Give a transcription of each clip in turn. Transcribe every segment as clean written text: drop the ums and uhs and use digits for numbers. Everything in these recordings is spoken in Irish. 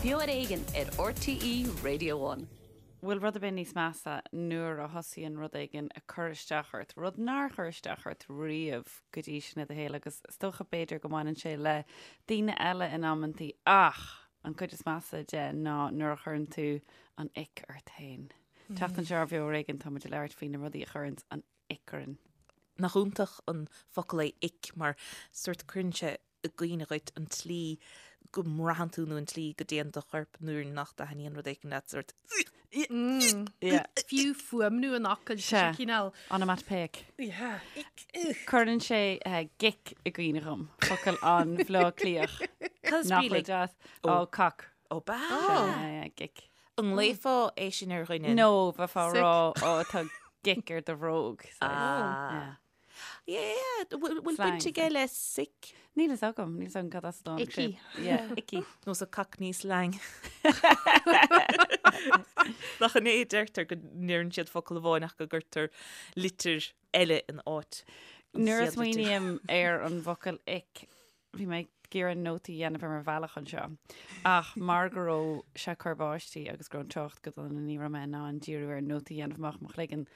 Beo ar Éigean ar RTÉ Radio One. Bhfuil rud ar bith níos measa nuair a thosaíonn rud éigin ag cur isteach ort, rud nár chuir isteach ort riamh go dtí sin i do shaol agus is dócha b'fhéidir go mbaineann sé le daoine eile in amantaí ach an cuid is measa de ná nuair a chuireann tú an ick ort féin. An tseachtain seo ar Bheo ar Éigean tá muid ag labhairt faoi na rudaí a chuireanns an ick orainn. Nach iontach an focal é ick mar sórt cuireann sé i gcuimhne dhuit an tslí go mbraitheann tú nó an tslí go dtéann do chorp nuair nach dtaitníonn rud éigin leat sórt Fiú fuaimniú an fhocail sé cineál. Onomatopoeic. Cuireann sé gick i gcuimhne dhom, focal an-Bhleá Cliathach. Cad is Nach brí bhfuil le deas? Ó, cock. Ó b'ea? Gick. An nglaofá é sin ar dhuine? No, bheifeá ag Sick. rá ó tá gick ar do bhróg. Ah. Yeah, bhfuil baint aige le sick? Níl fhios agam, níl fhios agam cad as a dtáinig sé. Icky. Yeah, icky. Nó sa Cockney slang. Nach in é a deirtear go ndeireann siad focal amháin ach go gcuirtear litir eile in áit an Nuair a chéad litir. smaoiním ar an bhfocal ick, Bhí mé ag iarraidh nótaí a dhéanamh ar mo bhealach anseo ach mar go raibh sé ag cur báistí agus go raibh an trácht go dona ní raibh mé in ann díriú ar nótaí a dhéanamh amach mo chloigeann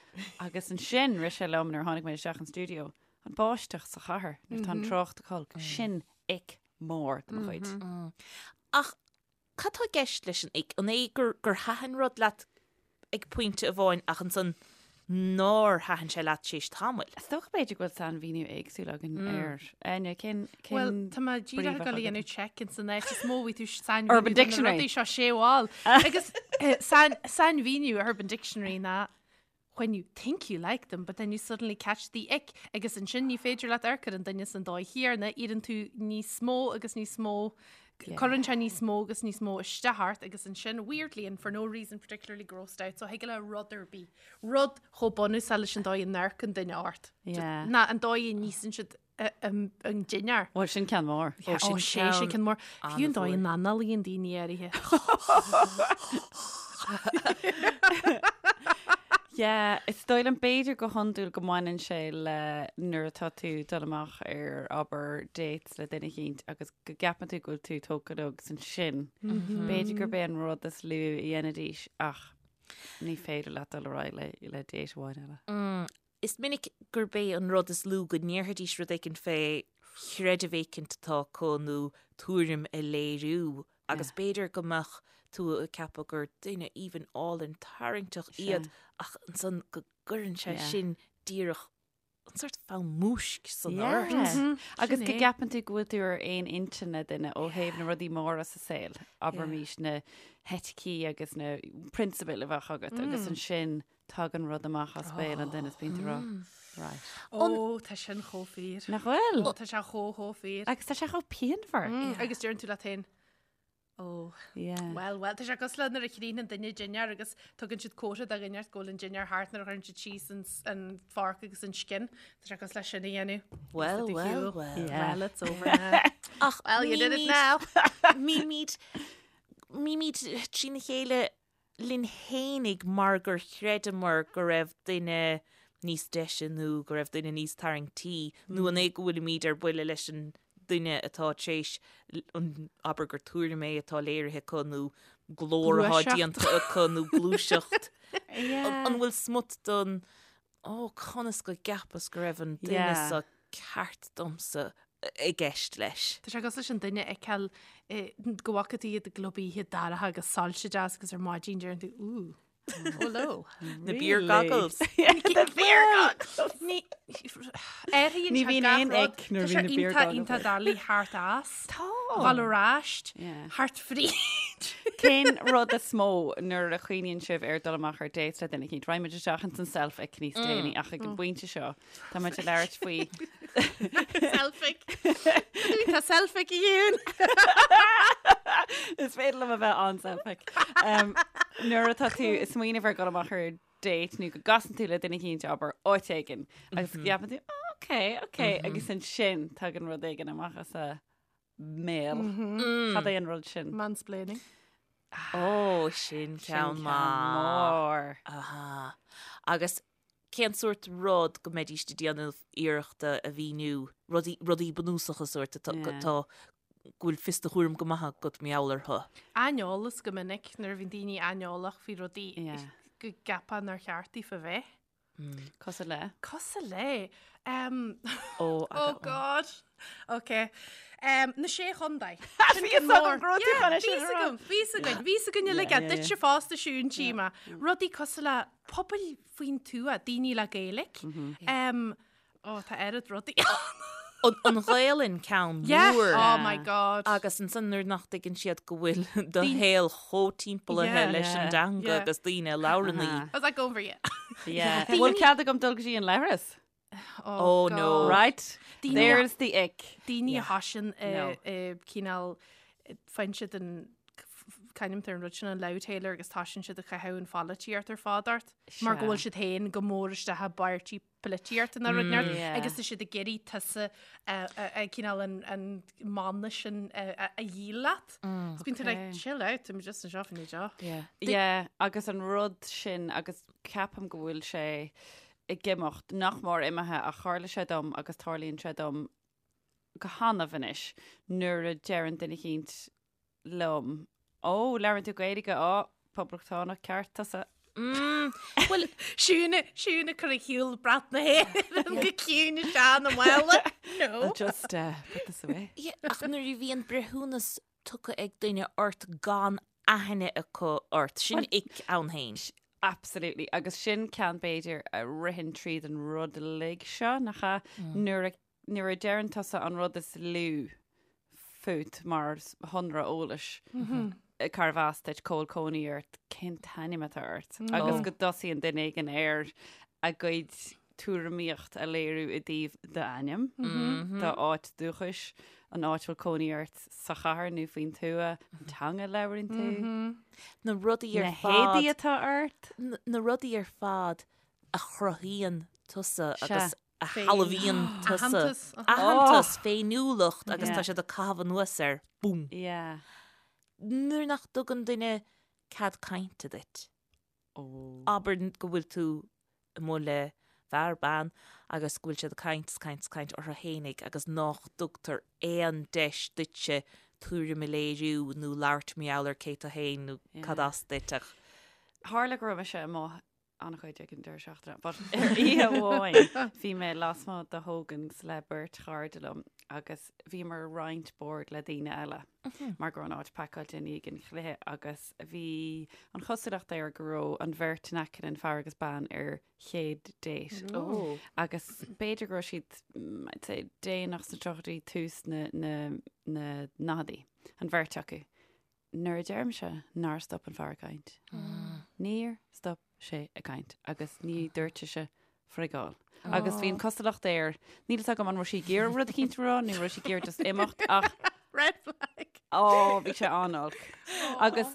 agus ansin rith sé liom nuair a tháinig mé isteach an stiúideo an báisteach sa chathair nuair atá an trácht ag olc sin ick mór de mo chuid. Ach Cad tá i gceist leis an ick? An é gur gur thaitin rud leat ag pointe amháin ach ansan nár thaitin sé leat tar éis tamaill? Is dócha b'fhéidir go bhfuil sainmhíniú éagsúil againn air. Áine, cén cén Bhuel, tá mé brí díreach ag bheadh dul a agat? dhéanamh check ins an áit is mó bhí tú sainmhíniú Urban do na Dictionary. rudaí seo sé bhall. Agus eh, sain- sainmhíniú Urban Dictionary ná when you think you like them but then you suddenly catch the ick agus ansin ní féidir leat amharc ar an duine san dóigh chéanna, iarrann tú níos mó agus níos mó, cuireann sé níos mó agus níos mó isteach ort agus ansin weirdly and for no reason particularly grossed out so thig le rud ar bith, rud chomh bunúsach leis an dóigh a n-amharcann duine ort, ná an dóigh a n-íosann siad an dinnéar. Bhuel, sin ceann mór. Ó, sin sé, sin ceann mór. Fiú an dóigh a n-análaíonn daoine áirithe. Yeah, is dóigh liom b'fhéidir go hiondúil go mbaineann sé le nuair atá tú dul amach ar abair dates le duine eicínt agus go gceapann tú go bhfuil tú tógtha leo agus ansin b'fhéidir gurb é an rud is lú a dhéanfaidís ach ní féidir leat dul ar aghaidh le le date amháin eile. Is minic gurb é an rud is lú go ndéarfaidís rud éicint fé chreideamh éicint atá acu nó tuairim a léiriú agus b'fhéidir go mbeadh tú ag ceapadh gur duine aoibhinn álainn tarraingteach iad ach ansan go gcuireann sé sin díreach an sórt fonn múisc san ort. Agus go gceapann tú go bhfuil tú ar aon intinn le duine ó thaobh na rudaí móra sa saol, abraimis na heiticí agus na prionsabail a bheadh agat agus ansin Tagann rud amach as béal an duine is bíonn tú ag rá, right. Ó, tá sin chomh fíor. Nach bhfuil? Ó, tá sé chomh, chomh fíor. Agus tá sé chomh pianmhar. Agus deireann tú leat féin, ó, Yeah. well, well, tá sé cosúil le nuair a chríochnaíonn duine dinnéar agus tugann siad comhartha do dhuine go bhfuil an dinnéar thart nuair a chuireann siad síos an, an fork agus an scian. Tá sé cosúil le sin a dhéanamh. Well, well, well. Yeah. Well, it's over now. Ach Well, you did it now. Bímid, bímid trína chéile linn fhéinig mar gur chreideamar go raibh duine níos deise nó go raibh duine níos tarraingtí nó an é go bhfuilimid ar buile leis an duine atá tar éis an, abair gur tuairim é atá léirithe acu nó glór atá déanta acu nó gluaiseacht. An bhfuil smut don Ó, conas go gceapas go raibh an duine seo ceart domsa i gceist leis. Tá sé cosúil leis an duine a fheiceáil go bhfaca tú iad i gclub oíche dorcha agus soilse deas agus ar maidin deireann tú, ooh, hello. Na beer goggles. The beer goggles! Ní athraíonn Ní sé bhíonn gach aon rud. ick nuair Tá a sé bhíonn na beer iontach goggles. iontach doiligh thart as. Tá. Dhul ar ais. Yeah. Thart fríd. Cén rud is mó nuair a chuimhníonn sibh ar dul amach ar date le duine eicínt? Raghaidh muid isteach ins an self-ick níos déanaí ach ag an bpointe seo tá muid ag labhairt faoi Self-ick. Tá self-ick a Fhionn. Is féidir liom a bheith an-self-ick. Um, nuair atá tú ag smaoineamh ar dhul amach ar date nó go gcasann tú le duine eicínt abair áit éigin agus go gceapann tú "Oh, ok, ok agus ansin tagann rud éigin amach as a mbéal. Cad é an rud sin? Mansplaining. Ó, sin ceann mór. Aha. Agus cén sórt rud go mbeidís ag déanamh iarrachta a mhíniú, rudaí, rudaí bunúsacha sórt atá, Yeah. atá. go bhfuil fios do chúraim go maith agat mar gheall orthu. Aineolas go minic nuair a bhíonn daoine aineolach faoi rudaí go gceapfá nár cheart daofa bheith. Cosúil le? Cosúil le. Um, oh, oh God. Ok. Um, na sé chontae. Bhí a fhios agam go raibh tú chun é sin a rá. Bhí a fhios againn, bhí a fhios againn uilig, duitse fosta Siún tchím. Rudaí cosúil le pobail faoin tuath, daoine le Gaeilge. Um, Ó, tá oiread rudaí ann. An Ghaelainn ceann mór. Oh my God. Agus ansan nuair nach dtuigeann siad go bhfuil do shaol chomh timpeallaithe leis an dteanga agus daoine a labhrann í. How's that going for you? Yeah. Bhfuil cead agam dul go dtí an leithreas? Oh no. Right? There's the ick. Daoine a thosaíonn cineál faigheann siad an c'ainm atá ar an rud sin an loudhailer agus tosaíonn siad ag caitheamh an pholaitíocht ar fad ort mar go bhfuil siad féin go mór isteach i bpáirtí polaitíocht nó rud inteacht agus tá siad ag iarraidh tusa cineál an mana sin a dhíol leat. So bíonn tú like, chill out, I'm just anseo faoin deoch. Yeah, agus an rud sin agus ceapaim go bhfuil sé ag imeacht nach mór imithe ach tharla sé dom agus tarlaíonn sé dom go hannamh anois nuair a deireann duine eicínt liom. Ó, labhrann tú Gaeilge, á, poblachtánach ceart tusa. Mm, bhuel, Siún, Siún ag cur ar shiúl brat na hÉireann go ciúin isteach ina mála. No. I'll just uh, put this away. Yeah, ach nuair a bhíonn breithiúnas tugtha ag duine ort gan aithne acu ort, sin ick ann féin. Absolutely. Agus sin ceann b'fhéidir a ritheann tríd an rud uilig seo, nach ea? Nuair a nuair a deireann tusa an rud is lú fút mar shonra eolais, cárbh as duit, cá bhfuil cónaí ort, cén t-ainm atá ort, agus go dtosaíonn duine éigin ar a gcuid tuairimíocht a léiriú i dtaobh d'ainm, d'áit dúchais, an áit a bhfuil cónaí ort sa chathair nó faoin tuath, an teanga a labhraíonn tú, na rudaí ar na héadaí fad, atá ort. na rudaí ar fad a chruthaíonn tusa agus a shealbhaíonn tusa. Aitheantas. Aitheantas, féiniúlacht agus tá siad ag caitheamh anuas air. Búm. Yeah. Nuair nach dtugann duine cead cainte duit. Abair go bhfuil tú amuigh le fear, bean agus go bhfuil siad ag caint is caint is caint orthu fhéinig agus nach dtugtar aon deis duitse tuairim a léiriú nó labhairt mar gheall ar cé tú fhéin nó cad as duit ach. Tharla go raibh mise amuigh an-chuid ag an deireadh seachtaine, but ar oíche amháin bhí mé lasmuigh de Hogan's le beirt chairde liom agus bhíomar ag roinnt bord le daoine eile mar go raibh an áit pacáilte i ndiaidh an chluiche agus bhí an chosúlacht air go raibh an bheirt in aice linn, fear agus bean, ar chéad date. Oh. Agus b'fhéidir go raibh siad, mm, I'd say, déanach sna tríochaidí, tús na, na, na ndaicheadaí, an bheirt acu. Nuair a deirimse nár stop an fear ag caint, níor stop sé ag caint agus ní dúirt sise frigáil. Agus bhí an cosúlacht air, níl fhios agam an raibh sí ag iarraidh rud eicínt a rá nó raibh sí ag iarraidh just imeacht ach Red flag. ó, bhí sé an-olc. Agus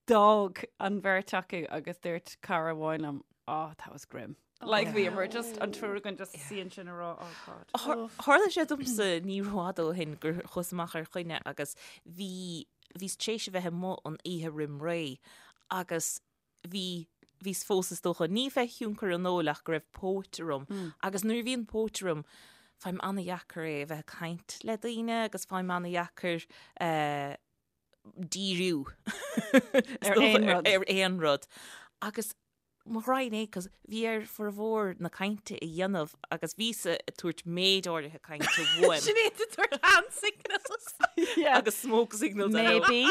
d'fhág an bheirt acu agus dúirt cara amháin liom, oh, that was grim. Like bhíomar just an triúr againn just suí ansin ag rá, oh God. Tharla sé domsa ní rófhada ó shin gur chuas amach ar choinne agus bhí, bhíos tar éis a bheith amuigh an oíche roim ré agus bhí, bhíos fós is dócha, ní fé thionchar an óil ach go raibh póit orm agus nuair a bhíonn póit orm faighim an-dheacair é a bheith ag caint le daoine agus faighim an-dheacair eh, díriú Ar aon rud. ar aon rud. Agus Mo ghraidhin é, 'cause bhí air formhór na cainte a dhéanamh agus bhíos ag tabhairt méid áirithe cainte uaim. Sinéad ag tabhairt hand signals. Yeah. Agus smoke signals I know. Maybe.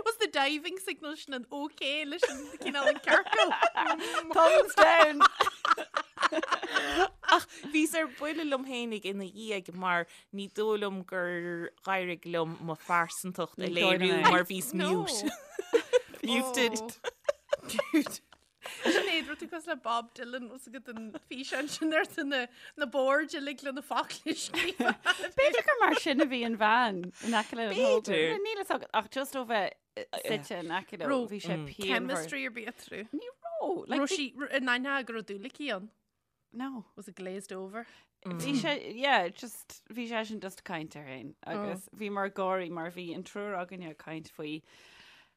Was the diving signal sin an OK leis an cineál an ciorcal? Thumbs down. Ach bhíos ar buile liom fhéinig ina dhiaidh mar ní dóigh liom gur dh'éirigh liom mo phearsantacht a Ní dóigh liom léiriú é. mar bhíos mute. Muted. Dude. Sinéad, raibh tú cosúil le Bob Dylan os agat an físeán sin ar na na boird uilig le na focla scríofa. B'fhéidir gur mar sin a bhí an bhean in aice le B'fhéidir. Níl fhios agat ach just ó bheith suite in aice leo Raibh bhí sé pianmhar. Chemistry ar bith eatarthu. Ní raibh. Like, Raibh bhí- sí in aithne go raibh dúil aici ann. No. Was it glazed over? Bhí sé, yeah, just, bhí sé sin just ag caint air féin agus bhíomar ag gáirí mar bhí an triúr againne ag caint faoi.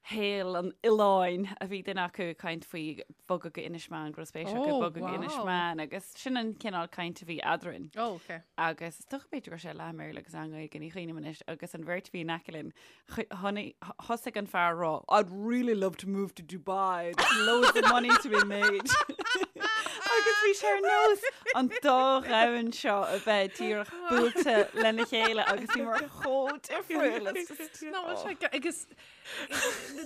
shaol an oileáin a bhí duine acu ag caint faoi bogadh go Inis Meáin, go raibh spéis acu Oh, bogadh go Inis wow. Meáin agus sin an cineál caint a bhí eadrainn. Oh, okay. Agus is dócha b'fhéidir go raibh sé leath i mBéarla agus leath i nGaeilge, ní chuimhním anois, agus an bheirt a bhí in aice linn, thosaigh an fear a rá, I'd really love to move to Dubai, there's loads of money to be made. Agus bhí sé ar nós an dá dhomhan seo a bheith díreach buailte lena chéile agus bhíomar chomh difriúil. It's just- Ná, bhfuil sé go- agus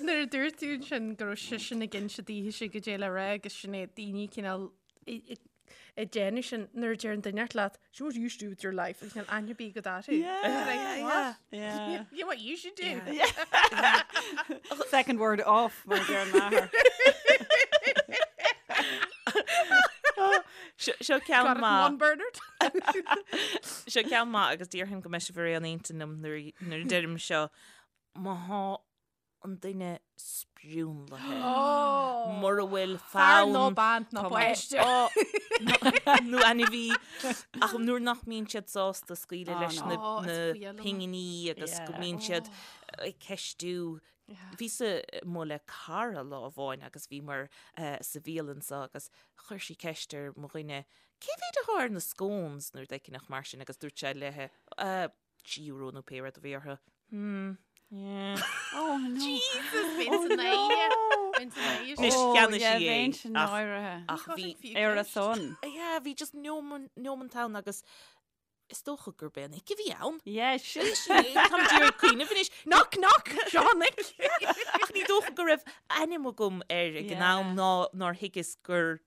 nuair a dúirt tú ansin go raibh seisean ag inse daoithese goidé le rá agus sin é daoine cineál ag déanamh sin nuair a deir an duine leat, so what do you do with your life? Agus níl aithne ar bith agat orthu. Yeah, Like, what? yeah. You know what you should do? Second word off, mar a deir m'athair. Seo ceann Got it in maith. one, Bernard. Seo ceann maith agus déarfainn go mbeidh sibh ar aon intinn liom nuair a deirim seo. Má thá an duine sprionlaithe. Mura bhfuil Fear fonn nó bean nó Tá páiste. nó ainmhí ach nuair nach mbíonn siad sásta scaoileadh Oh, leis no. na Oh, is na fuath liom. pinginí agus go Yeah. mbíonn siad ag ceistiú. Bhíos-sa amuigh le cara lá amháin agus bhíomar sa bhialann seo agus chuir sí ceist ar mo dhuine cé mhéad atá ar na scones nó rud éicint mar sin agus dúirt sé léi €3 nó pé rud a bhí orthu. Hmm. Yeah. Oh, no. Jesus, bhíonn san éine. Bhíonn san éine. Anois Oh, cheannaigh yeah, sí é, bheinn sin ach- náirithe. Ach bhí Ar a son. Yeah, bhí just neoman ann agus is dócha gurb é an ick a bhí ann. Yeah, sin. Táim d'iarraidh cuimhneamh anois. Knock, knock, Sean ick. Ach ní dócha go raibh ainm agam air ag an Yeah. am ná nár thuigeas gur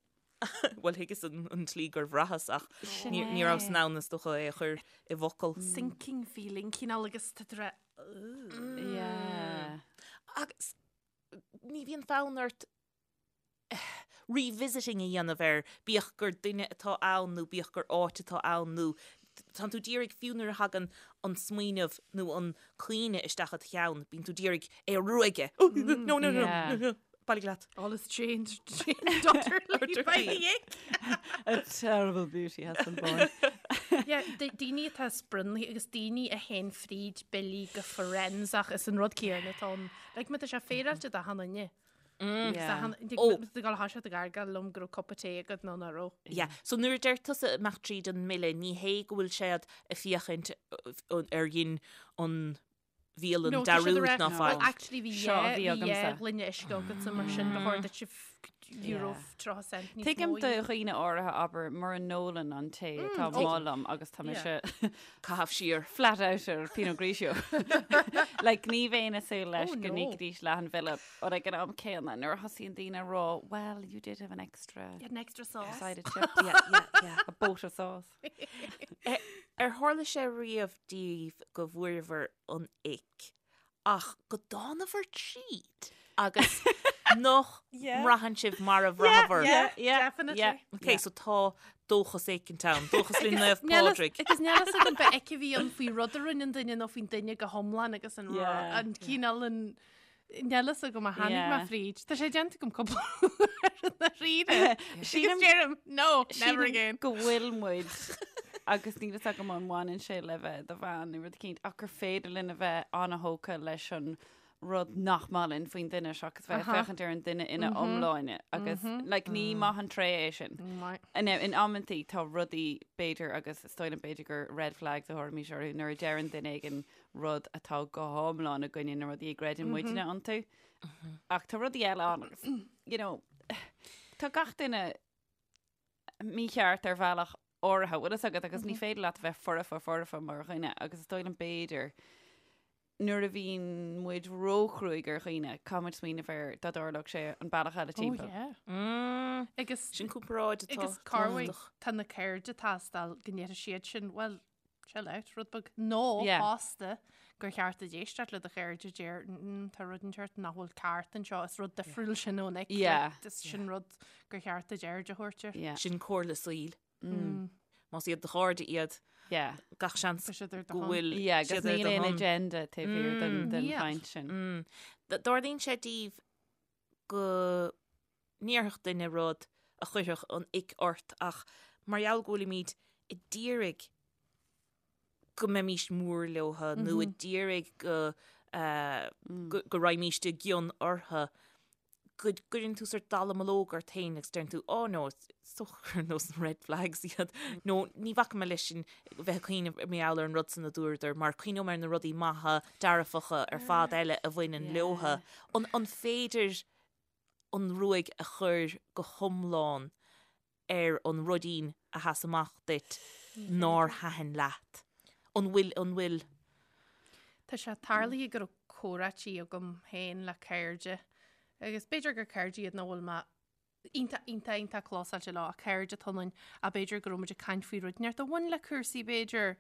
Bhuel thuigeas an tslí gur bhraitheas ach Sin ní ní rabhas é. in ann is dócha é a chur i bhfocal. Sinking feeling, cineál agus tá tú ag rá, Yeah. Agus ní bhíonn fonn ort revisiting a dhéanamh air, bíodh gur duine atá ann nó bíodh gur áit atá ann nó tánn tú d'iarraidh fiú nuair a thagann an smaoineamh nó an cuimhne isteach i do cheann, bíonn tú d'iarraidh é a ruaigeadh. Oh, no, no, no, Yeah. no, no. Bailigh leat. All is changed, changed utterly by the ick. A terrible beauty has been born. Yeah, daoine atá sprionlaithe agus daoine a théann fríd billí go forensach is an rud céanna atá ann. Like, má tá sé féaráilte d'achan duine. Yeah. Oh. Tá gal thá sé ag gargáil liom go raibh cupa tae agat nó nach raibh. Yeah. So nuair a deir tusa imeacht tríd an mbille, ní hé go bhfuil siad ag féachaint ar dhein an bhialann No, tá siad dearúd a rá, ná Well, faic. actually bhí Seo a dhá bhí bhí agamsa. dhá ghloine uisce agatsa mar sin ba chóir duit euro 30 cent níos Tuigim mó a do dhéanamh. dhaoine áirithe abair mura n-ólann an té atá oh. amuigh liom agus tá mise Caitheamh siar. flat out ar Pinot Grigio. Like ní bheinn ag súil leis Oh, go no. n-íocfaidís leath an bhille but ag an am céanna nuair a thosaíonn daoine ag rá well you did have an extra You had an extra sauce. side of chips. Yeah, yeah, yeah. A boat of sauce. Ar tharla sé riamh daoibh go bhfuaireabhair an ick ach go dtánabhair tríd agus nach mbraitheann sibh mar a bhraitheabhair? Yeah, Definitely. yeah. Ok, so tá dóchas éicint ann, dóchas le Naomh Níl fhios- Pádraig. Agus níl fhios agam an ick a bhí ann faoi rud a rinne an duine nó faoin duine go hiomlán agus an Yeah. an cineál an Níl fhios agam a tháinig mé Yeah. fríd. Tá sé déanta agam cúpla uair i ndáiríre. Agus deirim, no, never Sílim again. go bhfuil muid agus níl fhios agam an mbaineann sé le bheith i do bhean nó rud eicínt ach gur féidir linn a bheith an-thógtha leis an rud nach maith linn faoin duine seachas bheith ag féachaint ar an duine ina iomláine agus like, ní maith an tréith é sin. Right. Now, in amantaí tá rudaí b'fhéidir agus is dóigh liom b'fhéidir gur red flags a thabharfaimis orthu nuair a deireann duine éigin rud atá go hiomlán i gcoinne na rudaí a gcreideann muidne iontu. Ach tá rudaí eile ann agus, you know, tá gach duine mícheart ar bhealach áirithe, bhfuil fhios agat agus ní féidir leat a bheith foirfe foirfe mar dhuine agus is dóigh liom b'fhéidir nuair a bhíonn muid róchruaidh ar dhaoine, caithfidh muid smaoineamh ar dá dtarlódh sé an bealach eile Oh, timpeall. yeah. Agus Sin comparáid atá agus corruair tábhachtach. tá na cairde ag teastáil go ndéarfaidh siad sin, well, chill out, rud beag. Nó Yeah. fosta gur cheart duit éisteacht le do chairde a deir, "Mm, tá rud inteacht nach bhfuil ceart anseo, is rud difriúil sin ón ick. Yeah. Like, is sin rud gur cheart duit aird a thabhairt air. Yeah. Sin comhairle saoil. Más iad do chairde iad, Yeah. gach seans Tá siad ar do go shon. bhfuil Yeah, agus siad ar níl do aon shon. agenda taobh thiar den den Yeah. chaint sin. Mm. Dtarlaíonn sé daoibh go ndéarfadh duine rud a chuirfeadh an ick ort ach mar gheall go bhfuilimid ag d'iarraidh go mbeimís mór leotha nó ag d'iarraidh go. go raghaimíst i gcion orthu, go gcuireann tú sort dallamullóg ort féin agus deireann tú, oh no, is dócha gur nós na red flags iad, nó ní bhacfaidh mé leis sin bheith ag cuimhneamh mar gheall ar an rud san a dúradar, mar cuimhneoidh mé ar na rudaí maithe, dearfacha ar fad eile a bhaineann leotha. An féidir an ruaig a chur go hiomlán ar an ruidín a sheas amach duit nár thaitin leat? An bhfuil, an bhfuil? Tá sé tarlaithe go raibh comhráití agam féin le cairde agus b'fhéidir gur cairde iad nach bhfuil mé iontach, iontach, iontach clósáilte leo, ach cairde atá ionainn, ach b'fhéidir go raibh muid ag caint faoi rud inteacht a bhain le cúrsaí b'fhéidir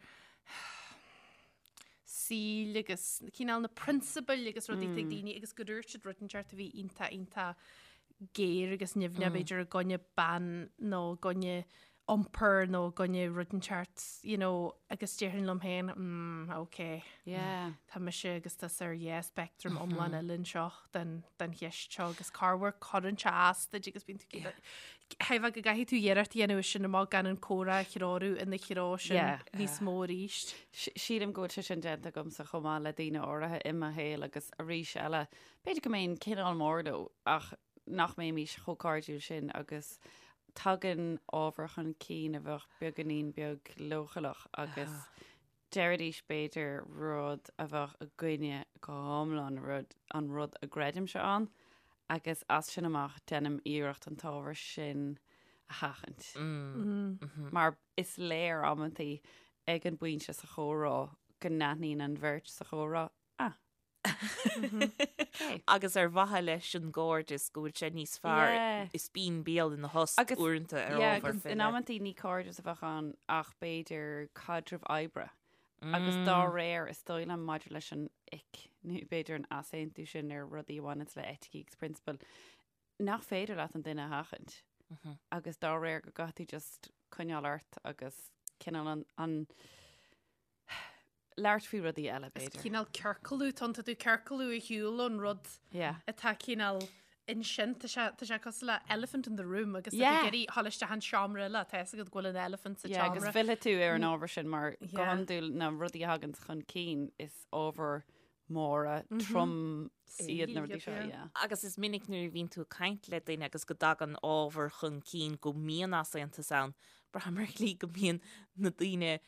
saoil agus cineál na prionsabail agus rudaí atá ag daoine agus go dúirt siad rud inteacht a bhí iontach, iontach géar agus nimhneach b'fhéidir i gcoinne bean nó i gcoinne iompar nó i gcoinne rud inteacht, you know, agus déarfainn liom féin, mm, ok. Yeah. Tá mise agus tusa ar dhá speictream iomlán eile anseo den, den cheist seo agus corruair cuireann sé as duit agus bíonn tú yeah. Thaifeadh go gcaithfidh tú iarracht a dhéanamh sin amach gan an comhrá a threorú ina threo sin Yeah. níos mó arís. Sílim go bhfuil sé sin déanta agamsa chomh maith le daoine áirithe i mo shaol agus arís eile, b'fhéidir go mbeinn cineál mór leo ach nach mbeimis chomh cairdiúil sin agus tagann ábhar chun cinn a bheadh beagáinín beag leochaileach agus deiridís b'fhéidir rud a bheadh i gcoinne go hiomlán rud, an rud a gcreidimse ann agus as sin amach déanaim iarracht an t-ábhar sin a sheachaint. Mar is léir amantaí ag an bpointe sa chomhrá go n-aithníonn an bheirt sa chomhrá, ah, Agus ar mhaithe leis an gcairdeas go bhfuil sé níos fearr is bíonn béal ina thost uaireanta ar ábhar faoi leith. In amantaí ní cairdeas a bheadh ann ach b'fhéidir caidreamh oibre. Agus dá réir is dóigh liom maidir leis an ick nó b'fhéidir an easaontú sin ar rudaí a bhaineanns le eiticí agus prionsabail, nach féidir leat an duine a sheachaint. Agus dá réir go gcaithfidh tú just coinneáil ort agus cineál an, an labhairt faoi rudaí eile, Is b'fhéidir. cineál ciorcalú, tá tú ciorcalú ar shiúl ón rud Yeah. atá cineál ansin, tá sé tá sé cosúil le elephant in the room agus tá tú Yeah. ag iarraidh dhul isteach an seomra eile, tá fhios agat go bhfuil an elephant sa Yeah, agus tseomra. fillfidh tú ar an ábhar sin mar go Yeah. hiondúil na rudaí a thagann chun cinn is ábhar móra trom iad na rudaí seo, yeah. yeah. Agus is minic nuair a bhíonn tú ag caint le duine agus go dtagann ábhar chun cinn go mbíonn easaontas ann, braithim ar shlí go mbíonn na daoine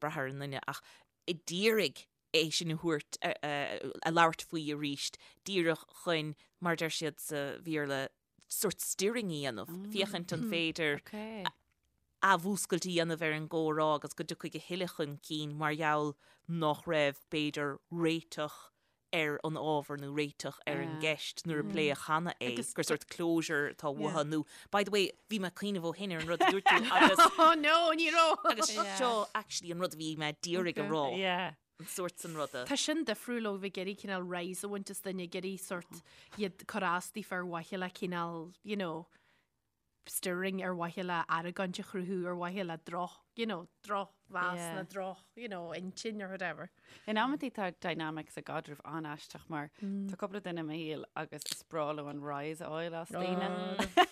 brath ar an nduine ach d'iarraidh é sin a thabhairt, a labhairt faoi arís, díreach chun, mar a deir siad sa Bhéarla, sort stirring a dhéanamh, féachaint an féidir athmhúscailt a dhéanamh ar an gcomhrá agus go dtiocfaidh a thuilleadh chun cinn mar gheall nach raibh, b'fhéidir, réiteach ar an ábhar nó réiteach ar an gceist nuair a pléadh cheana é, gur sort closure atá uathu nó, by the way, bhí mé ag cuimhneamh ó shin ar an rud a dúirt tú agus Oh no, ní raibh! agus seo actually an rud a bhí mé d'iarraidh a rá, an sórt san ruda. Tá sin difriúil ó bheith ag iarraidh cineál rise a bhaint as duine, ag iarraidh sort iad cur as daofa ar mhaithe le cineál, you know, stirring ar mhaithe le argóint a chruthú, ar mhaithe le droch, you know, drochmheas Yeah. nó droch, you know, intinn or whatever. In amantaí tá dynamics i gcaidreamh an-aisteach mar tá cúpla duine i mo shaol agus is breá leo an rise a fháil as daoine.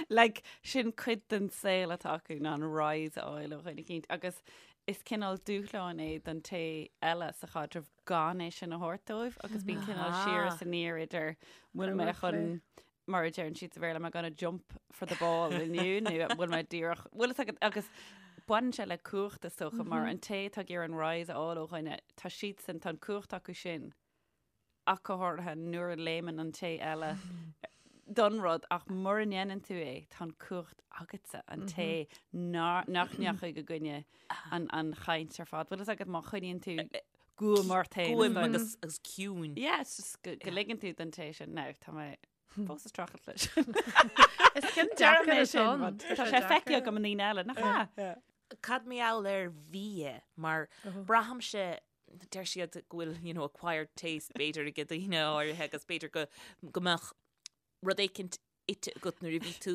Like, sin cuid den saol atá acu ná an rise a fháil ó dhuine eicínt agus is cineál dúshlán é don té eile sa chaidreamh gan é sin a thabhairt dóibh agus bíonn cineál siar is aniar idir bhfuil mé chun mar a deireann siad sa Bhéarla, am I gonna jump for the ball inniu nó an bhfuil mé díreach, bhfuil fhios agat, agus baineann sé le cumhacht is dócha mar an té atá ag iarraidh an rise a fháil ó dhuine, tá siadsan, tá an cumhacht acu sin ach go háirithe nuair a léimeann an té eile don rud ach mura ndéanann tú é, tá an cumhacht agatsa, an té nach ndeachaigh i gcoinne an, an chaint ar fad. Bhfuil fhios agat má choinníonn tú guaim ort féin. Guaim agus agus ciúin. Yeah, it's just go go ligeann tú don té sin. Now, tá mé fós ag streachailt leis. Is ceann Deirim deacair é é sin, sin. but Tá sé feicthe agam i ndaoine eile, nach ea? Cad mar gheall ar bhia mar braithimse deir siad go bhfuil you know, acquired taste b'fhéidir ag daoine áirithe agus b'fhéidir go go mbeadh rud éicint ite agat nuair a bhí tú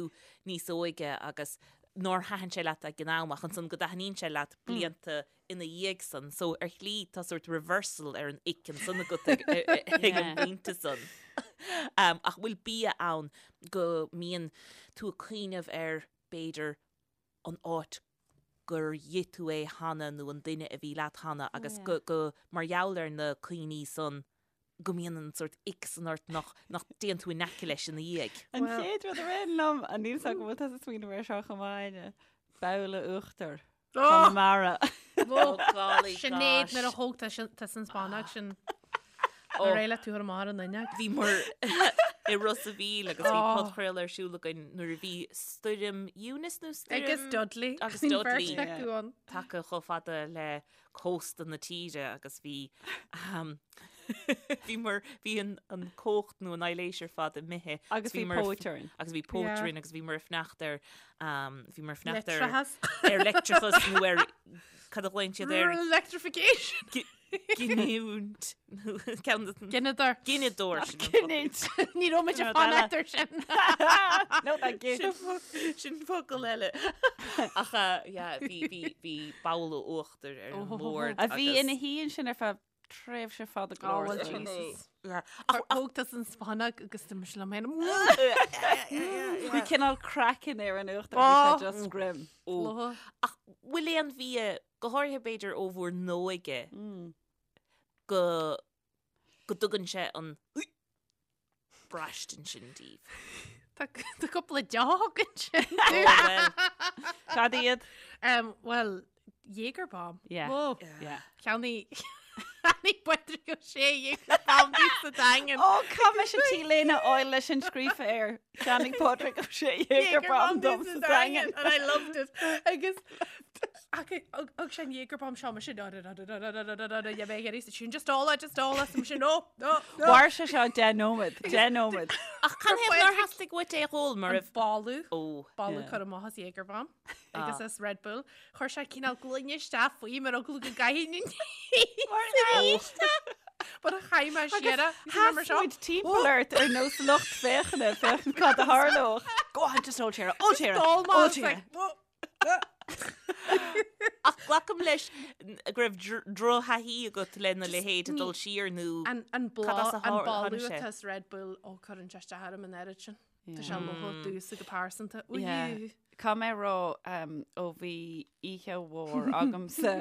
níos óige agus nár thaitin sé leat ag an am ach ansan go dtaitníonn sé leat blianta ina dhiaidh san. So ar shlí tá sort reversal ar an ick ansan agat ag an bpointe san. Ach bhfuil bia ann go mbíonn tú ag cuimhneamh ar b'fhéidir an áit. gur ith tú é cheana nó an duine a bhí leat cheana agus go, go, mar gheall ar na cuimhní san go mbíonn an sórt ick san ort nach, nach dtéann tú in aice leis ina dhiaidh. An chéad rud a rith liom, a níl 's agam an bhfuil tusa ag smaoineamh air seo chomh maith, Áine, babhla uachtair. Conamara. Oh golly Sinéad gosh. nuair a thóg tusa an spannóg sin. Ar éirigh leat tú ar amach ar an fhuinneog. Bhíomar i Ros a' Mhíl agus bhí Oh. podchraoladh ar siúl againn nuair a bhí stoirm Eunice nó stoirm Agus Dudley. Agus Bhí Dudley. beirt acu ann. tagtha chomh fada le cósta na tíre agus bhí um, bhí mar bhí an, an cumhacht nó an aibhléis ar fad imithe Agus bhí mar póit orainn. agus bhí póit Yeah. orainn agus bhíomar ag fanacht ar um, bhíomar ag fanacht ar Leictreachas. ar leictreachas nó ar cad a ghlaonn siad ar Electrification. giniúint ceann de- Gineadóir. gineadóir sin an focal. Giniúint. Ní raibh muid ag Rud eile. fanacht ar sin. No, thank you. Sin fo- sin focal eile. Ach uh, yeah, bhí bhí bhí babhla uachtair ar an Oh. mbord. A bhí agus- ina shuí ansin ar feadh tréimhse fada go Oh, leor. well, so. Jesus. Yeah. Ach thóg tusa an spannóg agus do mise liom féin. Bhí cineál craiceann ar an uachtar, bhí Oh. sé just grim. Ó. Ach bhfuil aon bhia, go háirithe b'fhéidir ó bhur n-óige, go go dtugann sé an braistint sin daoibh? Tá tá cúpla deoch ansin. Ó, well, Cad iad? Um, well, Jaeger bomb. Yeah. Whoa. Yeah. Cheannaigh Cheannaigh Pádraig Ó Sé Jaeger bomb domh sa Daingean. Ó, chaith mise t-léine a fháil leis sin scríofa air. Cheannaigh Pádraig Ó Sé Jaeger bomb dom sa Daingean. And I loved it. Agus Thug sé an Jaeger bomb seo sin sin just ól just ól sin no no no. Mhair sé seo 10 nóiméad, 10 nóiméad. Ach canathaobh nár theastaigh uait é a dh'ól mar An raibh boladh Ó. boladh Yeah. cur amach as Jaeger bomb agus as Red Bull. Chuir sé cineál gloine isteach faoi mar eagla go gcaithfinn an But a chaith mé siar é. Sheas muid timpeall ort ar nós lucht féachana féachaint cad a tharlódh. Go on, just ól siar, ól siar, ól siar. Ach glacaim leis go raibh drochthaithí agat lena leithéid ag dul siar nó An an Cad as a bláth an tháinig boladh sé? atá as Red Bull ó cuireann sé isteach orm an oiread sin. Tá sé lofa domhsa go pearsanta. Yeah. Ui. Caithfidh mé a rá ó bhí oíche mhór agamsa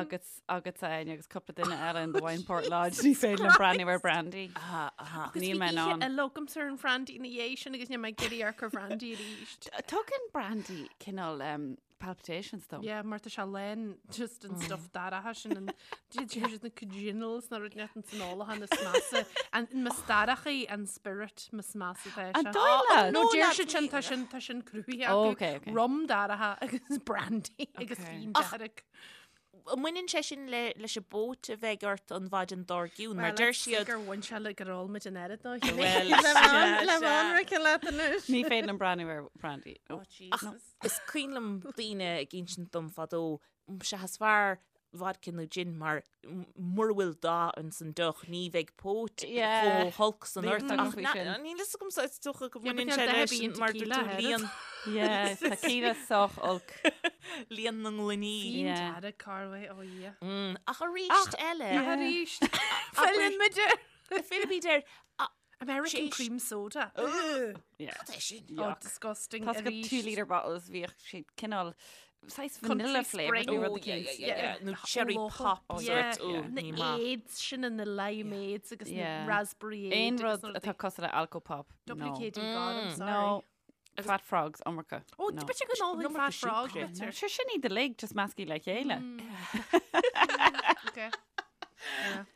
agus agatsa Áine agus cúpla duine eile in the Wineport Lodge ní féidir liom breathnú ar brandy. Aha, aha. Agus Níl bhí mé in oíche ann. eile agamsa ar an bhrandy ina dhiaidh sin agus níl mé ag iarraidh amharc ar bhrandy arís. Tugann brandy cineál palpitations dom. Yeah, mar tá sé lán just an stuff dorcha sin an deir na congenials na rud net an san olachan is measa an mistéireachaí an spirit is measa tá An sé. dóigh leat? No No, deir lads, siad sin ní- tá sin tá sin cruthaithe Oh, acu. okay, okay. Rum dorcha agus brandy agus Okay. fíon Ach, dearg. An mbaineann sé sin le leis an bpóit a bheidh ort an mhaidin dár gcionn mar Well, deir let's see siad gur bhain sé le gur ól muid an oiread nó Well, Le sea, le sea. anraice leat anois. Ní féidir liom breathnú ar brandy. Oh, Oh. Jesus. Is cuimhin liom daoine ag insint dom fadó, sea is fearr vodka nó gin mar mura bhfuil dath ins an deoch ní bheidh póit Yeah. chomh holc san Níl ort. fhios agam Ach faoi na- sin. níl fhios agam is dócha go Yeah, but mbaineann níl sé dath leis ar bith mar tequila dúirt tú air. líon Yeah, tequila sách olc. líon na ngloiní. Fíon Yeah. dearg Carway, oh yeah. Mm, Ach arís eile, Arís. Filleann muid air. Fillfimid air. American Séis- cream soda. Yeah. Cad é sin? Oh, Yuck. disgusting. Tá go Arís. 2 litre bottles bhíodh siad cineál saghas Country vanilla flavour spring. nó rud Oh, yeah, eicínt. yeah, yeah, yeah. Nó cherry Locha. pop Oh, sort. yeah. Oh, Yeah. Na ní maith. aids sin na limeades agus na Yeah. raspberry Aon aid rud atá cosúil le alcopop. No. WKD God, I'm sorry. No. Fat frogs, iomarca. Oh, No. b'fhéidir go n-ólfainn Iomarca fat frog. siúcra. No, bitter. Sure sin iad uilig just measctha le chéile. Okay.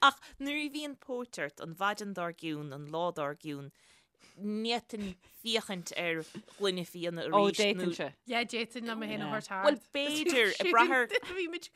Ach nuair a bhíonn póit ort an mhaidin dár gcionn, an lá dár gcionn, ní fhéadfainn féachaint ar ghloine fíona Ó, arís nó d'fhéadfainnse. Yeah, d'fhéadfainn liom mé féin a Yeah. thabhairt thart. Bhuel, b'fhéidir, ag brath ar- Bhí muid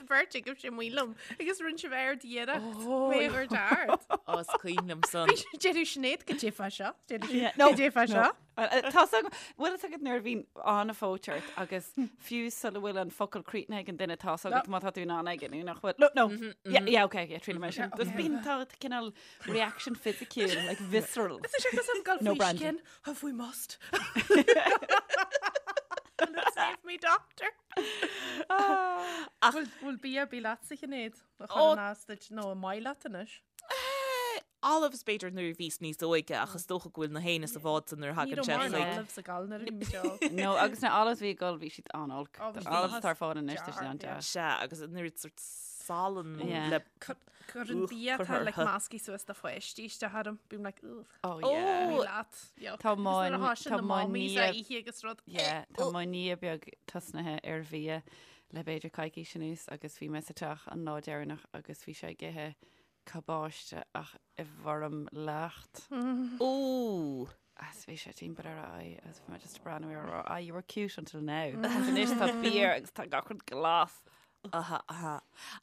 beirt ag sé maith liom agus rinne sibh aird iarracht mé a thabhairt thart. Ó, is cuimhin liom san. Déarfaidh Sinéad goidé fá seo. Yeah, No, goidé fá seo. Tá bhfuil a fhios agat nuair a bhíonn an-phóit ort agus fiú sula bhfuil an focal críochnaithe ag an duine tá a fhios agat má tá tú in ann aige nó nach bhfuil. No, no. Yeah, yeah, okay, yeah, triail mé sin. Just bíonn tá cineál reaction fisiciúil, like visceral. Is sé cos am gal No faoi brandy. skin, have we must. Will it save me, doctor? Ach Bhfuil bia ar bith leatsa Sinéad? A Ó. chur as duit nó an maith leat anois? Olives b'fhéidir nuair a bhíos níos óige ach is dócha go bhfuil na héinne sa bhád san nuair a thagann sé chuig. Ní raibh olives ag gabháil nuair a bhí muid óg. No, agus na olives bhí ag gabháil bhí siad an-olc. Oh, bhí Na olives atá ar fáil anois tá siad an-deas. Sea, agus an oiread sort salann le Cuireann bia atá like measctha suas do pháistí isteach orm. Bím like, ugh. Oh yeah. Ní leat. Yuck. Tá mo Agus nuair atá sin tá na mo mommies nia á ithe agus rud. Yeah, tá mo nia beag tosnaithe ar bhia le b'fhéidir coicís anuas agus bhí mé sa teach an lá deireanach agus bhí sé ag ithe cabáiste ach i bhfoirm leacht. Ooh. Agus bhí sé timpeall ar a aghaidh agus bhí mé just ag breathnú air ag rá, ah, you were cute until now. Agus anois tá beer agus tá gach rud glas. Aha, aha.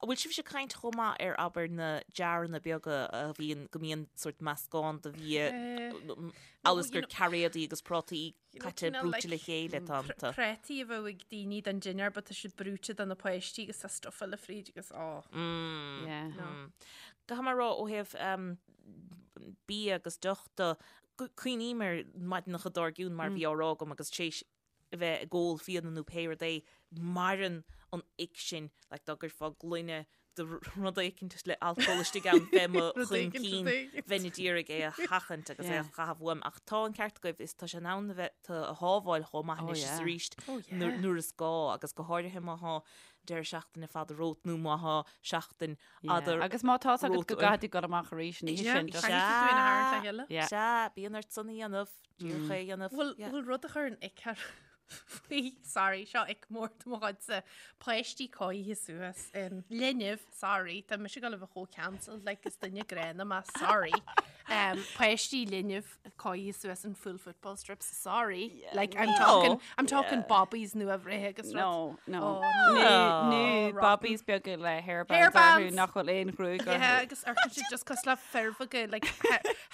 An bhfuil sibhse ag caint chomh maith ar abair na jaranna beaga a bhíonn, go mbíonn sort meascán de bhia, amhail is gur cairéadaí agus prátaí caite brúite le chéile atá iontu. Prátaí a bheadh ag daoine don dinnéar but tá siad brúite do na páistí agus tá stuff eile fríd agus á. Yeah. Caithfidh mé a rá ó thaobh bia agus deoch de, cuimhním ar maidineacha dár gcionn mar a bhí á rá agam agus tar éis a bheith ag ól fíona nó pé rud é, maireann an ick sin, like dá gcuirfeá gloine de rud éicint le alcól istigh ann bheith mo Rud éicint, chun rud éicint. bheinn ag iarraidh é a sheachaint agus é a Yeah. chaitheamh uaim. Ach tá an ceart agaibh, is tá sé in ann a bheith tú a shábháil chomh maith Oh, anois is yeah. arís Oh, yeah. nuair nuair is gá agus go háirithe má thá deireadh seachtaine fada romhat nó má thá seachtain fhada Yeah. Agus má tá agat romhat go uaim. gcaithfidh tú dul amach arís an oíche Yeah, sin, just- caithfidh tú é a tharraingt le chéile. Yeah. Sea, bíonn ort san a dhéanamh, díreach é a dhéanamh. Bhfuil Yeah. bhfuil rud a chuireann ick ar faoi, sorry, seo ick mór de mo chuidse, páistí cóirithe suas in linbh, sorry, tá mise ag dul a bheith chomh cancelled, like is duine gránna mé, sorry. Um, páistí linbh cóirithe suas in full football strips, sorry. Like I'm No. talking, I'm talking bobbies nua-bhreithe agus rud. No, no. Oh, Nó no. nó Oh, rotten. bobbies beaga le hairbands Hairbands. orthu nach bhfuil aon ghruaig Yeah, orthu. agus amharcann siad just cosúil le fir bheaga, like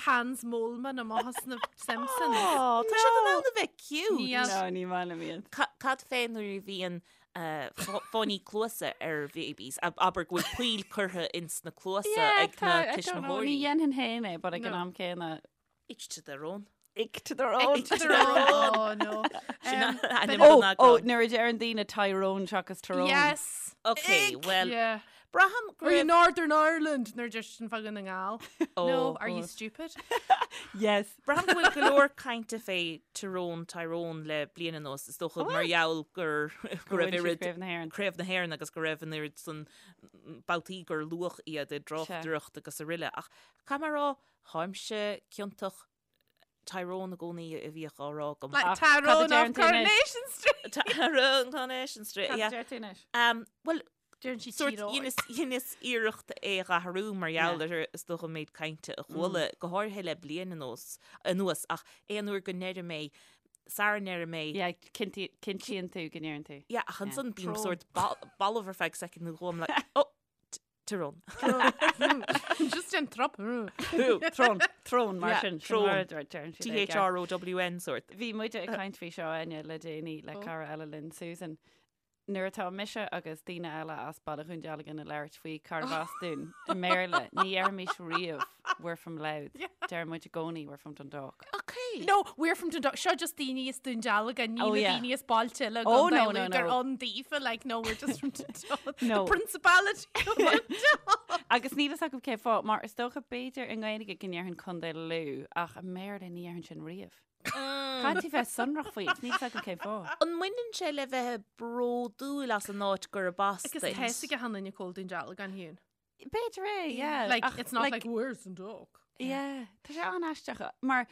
Hans Moleman amach as na Simpsons. Oh, tá siad in ann a bheith cute. Níl. No, ní maith liom iad. Cad fé nuair a bhíonn fáinní cluasa ar bhabies, abair go bhfuil poill curtha ins na cluasa ag na Ní tuismitheoirí. dhéanfainn féin é, but ag an No. am céanna. Each to their own. Each to their own. Each to their own. Oh, no. Sin Um, ainm Oh, don oh, eagrán. nuair a deireann daoine Tyrone seachas Tyrone. Yes. Ok, well, Yeah. braithim go Are you raibh... Northern Ireland? Nuair just sin fá Dhún na nGall. Oh, No, are you stupid? Yes. Braithim go bhfuil go leor cainte fé Tyrone, Tyrone le bliain anuas, is dócha mar gheall gur go raibh Bhain siad oiread Craobh na hÉireann. Craobh na hÉireann agus go raibh an oiread san babhtaí gur luadh iad i dtráchtaireacht agus araile. Ach caithfidh mé a rá, táimse ciontach Tyrone i gcónaí a bhíodh á rá agam. Like Ach, cad a Tyrone deireann of tú anois? Coronation Street. Tyrone Coronation Street, Cad a yeah. deir tú anois? Um, well, Deireann sí sort Tyrone. dheineas dheineas iarracht é a athrú mar gheall ar is dócha an méid cainte a chuala, go háirithe le bliain anuas, anuas, ach aon uair go ndeirim é, sara ndeirim é, Yeah, cinnti- cinntíonn tú go ndeireann tú. yeah, ach ansan bím Tyrone. sort bal- balbh ar feadh soicind nó dhó, I'm like, oh, Tyrone. Just an trop. Trón, trón mar Yeah, sin. trón. T-H-R. T-H-R-O-W-N sort. Bhí muide ag caint faoi seo Áine le déanaí le cara eile linn Susan. Nuair atá mise agus daoine eile as Baile Dhún Dealgan ag labhairt faoi cárbh as dúinn i mBéarla, ní dheirimis riamh we're from Louth. Deir muid i gcónaí we're from Dundalk. Okay. No, we're from Dundalk. Seo just daoine as Dún Dealgan, ní Oh, na yeah. daoine as bailte eile Oh, gcontae no, no, Lú gur no. ann daofa, like, no, we're just from Dundalk. No. The Principality of Dundalk. Agus níl fhios agam cén fáth, mar is dócha b'fhéidir i nGaeilge go ndéarfainn Contae Lú, ach i mBéarla ní dhéarfainn sin riamh. Caithfidh tú bheith sonrach faoi, níl fhios agam cén fáth. An mbaineann sé le bheith bródúil as an áit gurb as Agus duit? tá fhios ag achan duine cá bhfuil Dún Dealgan Hugh. B'fhéidir é, yeah. Like, Ach, it's not like, where's Dundalk? Yeah, tá sé an-aisteach, mar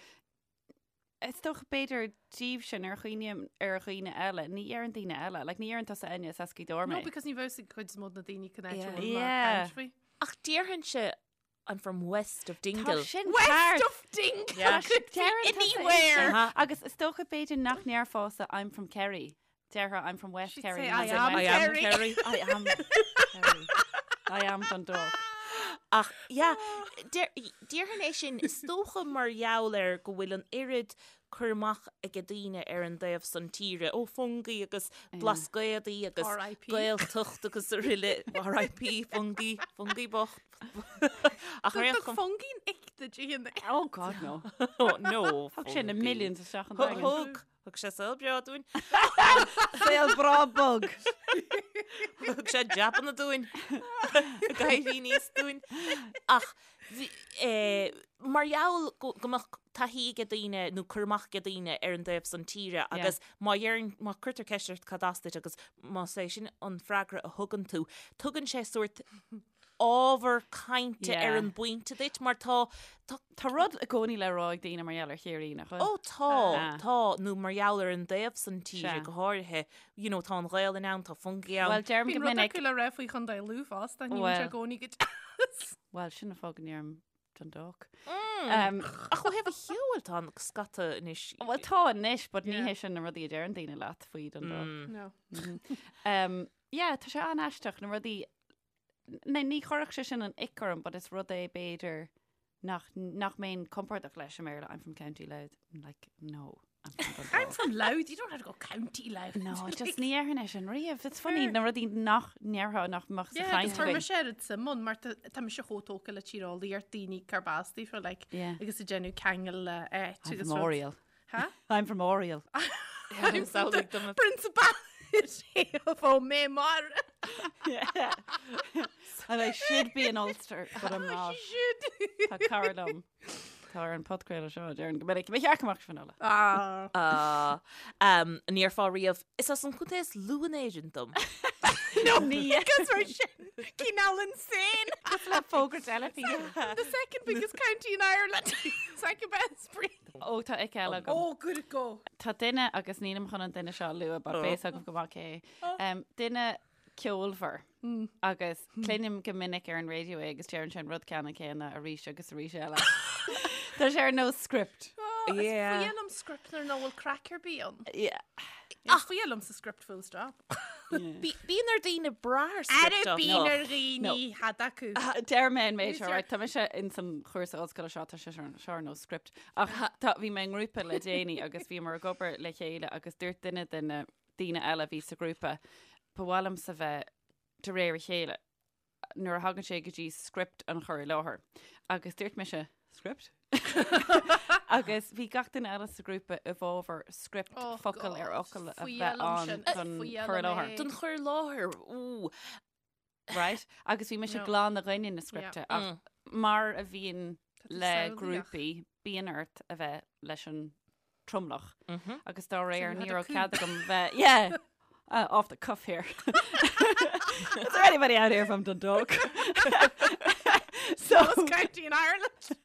is dócha b'fhéidir díobh sin ar chuimhním ar dhaoine eile, ní deireann daoine eile, like ní deireann tusa Enya as Gaoth Dobhair No, mé. because ní bheadh ag cuid is mó de na daoine cén áit Yeah. a bhfuil mé ag Yeah. caint faoi. Ach déarfainnse I'm from west of Dingle. Tá sin West ceart. of Dingle Yeah. could be Deireann tusa é anywhere. sin. Uh-huh. Agus is dócha b'fhéidir nach ndéarfása I'm from Kerry. Déarfá I'm from West She'd Kerry. say, not "I am I am Kerry." Kerry. I am Kerry. I am Dundalk. Ach, yeah, déarfainn é sin, is dócha mar gheall ar go bhfuil an oiread cur amach ag daoine ar an dtaobh san tíre, ó Fungie agus Blascaodaí agus R.I.P. Gaeltacht agus araile, R.I.P. Fungie, Fungie bocht. Ach ar aon Thug chuma- Fungie an ick duit a Hugh? Oh God, no. Oh, no, Thug sé na Fungie. millions isteach an Thug, daingean. thug, thug sé saol breá dúinn. Saol breá bog. Thug sé jabanna dúinn. Ag éirí aníos dúinn. Ach Eh, mar gheall go go mbeadh taithí ag daoine nó cur amach ag daoine ar an dtaobh san tíre agus má dheireann, má cuirtear ceist ort cad as duit agus más é sin an freagra a thugann tú, tugann sé sórt ábhar cainte ar an bpointe duit mar tá, tá. Tá rud i gcónaí le rá ag daoine mar gheall ar Chiarraí, nach bhfuil? Ó tá, tá, nó mar gheall ar an dtaobh san tíre go háirithe, you know, tá an Ghaelainn ann, tá Fungie ann. Bhuel, deirim go Bíonn rud minic. acu le rá faoi Chontae Lú fosta, ní bhíonn sé i gcónaí go deas. Bhuel, sin an fáth go ndeirim Dundalk. Ach ó thaobh an cheoil tá an scata anois. Bhuel, tá anois, but ní hé sin na rudaí a deireann daoine leat faoi Dundalk. No. Yeah, tá sé an-aisteach, na rudaí Ní ní chuirfeadh sé sin an ick orm, but is rud é b'fhéidir nach nach mbeinn compordach leis i mBéarla. I'm from County Louth. I'm like, no, I'm from Dundalk. I'm from Louth, you don't have to go County Louth. No, just ní dhéarfainn é sin riamh. It's funny, na rudaí nach ndéarfá nach mbeadh sa Yeah, chaint agus chuir againn. mise oiread suim ann mar tá tá mise chomh tógtha le tíreolaíocht daoine cárb as daofa like, Yeah. agus ag déanamh ceangal le áit I'm agus from rud. Oriel. Huh? I'm from Oriel. I'm from the Principality of Ó Mar. Yeah. And I should be in Ulster, but I'm not. Should. Tá cara liom. Tá ar an podchraoladh seo deireann go minic. Ba cheart go mbeadh Finola. Ah. Ah, um, an ndéarfá riamh, is as an chontae is lú in Éirinn dom. No, because we're sin cineál insane. Le fógra teilifíse. The second biggest county in Ireland. Second best breed. Ó tá ick eile agam. Oh, good go. Tá duine agus nílim chun an duine seo a lua, but beidh a fhios agaibh go maith cé. Um, duine ceolmhar agus cluinim go minic ar an raidió é agus deireann sé an rud ceannann céanna arís agus arís eile. Tá sé ar nós script. Oh, Yeah. Is fuath liom script nuair nach bhfuil craic ar bith ann. Yeah. Is fuath liomsa script full stop. Bíonn ar daoine brath ar script Ara bíonn ar dhaoine cad acu. Deir mé an méid seo, right, tá mise in san chúrsa ollscoile seo, tá sé seo ar nós script. Ach tá, bhí mé i ngrúpa le déanaí agus bhíomar ag obair le chéile agus dúirt duine de na daoine eile a bhí sa ghrúpa, ba mhaith liomsa bheith de réir a chéile nuair a thagann sé go dtí script an chur i láthair. Agus dúirt mise, script? Agus bhí gach duine eile sa ghrúpa i bhfabhar script Oh, focal ar God. fhocal a Fuath bheith liom ann sin. don Fuath chur i liom láthair. é. Don chur i láthair, ú. Right? Agus bhí mise No. glan i gcoinne na scripte ach mar a bhíonn Tá tú le samhlaíoch. grúpaí, bíonn ort a bheith leis an tromlach. Agus dá réir you ní had a raibh coup. cead agam bheith, yeah, uh, off the cuff here. Is there anybody out here from Dundalk? so, County in Ireland. so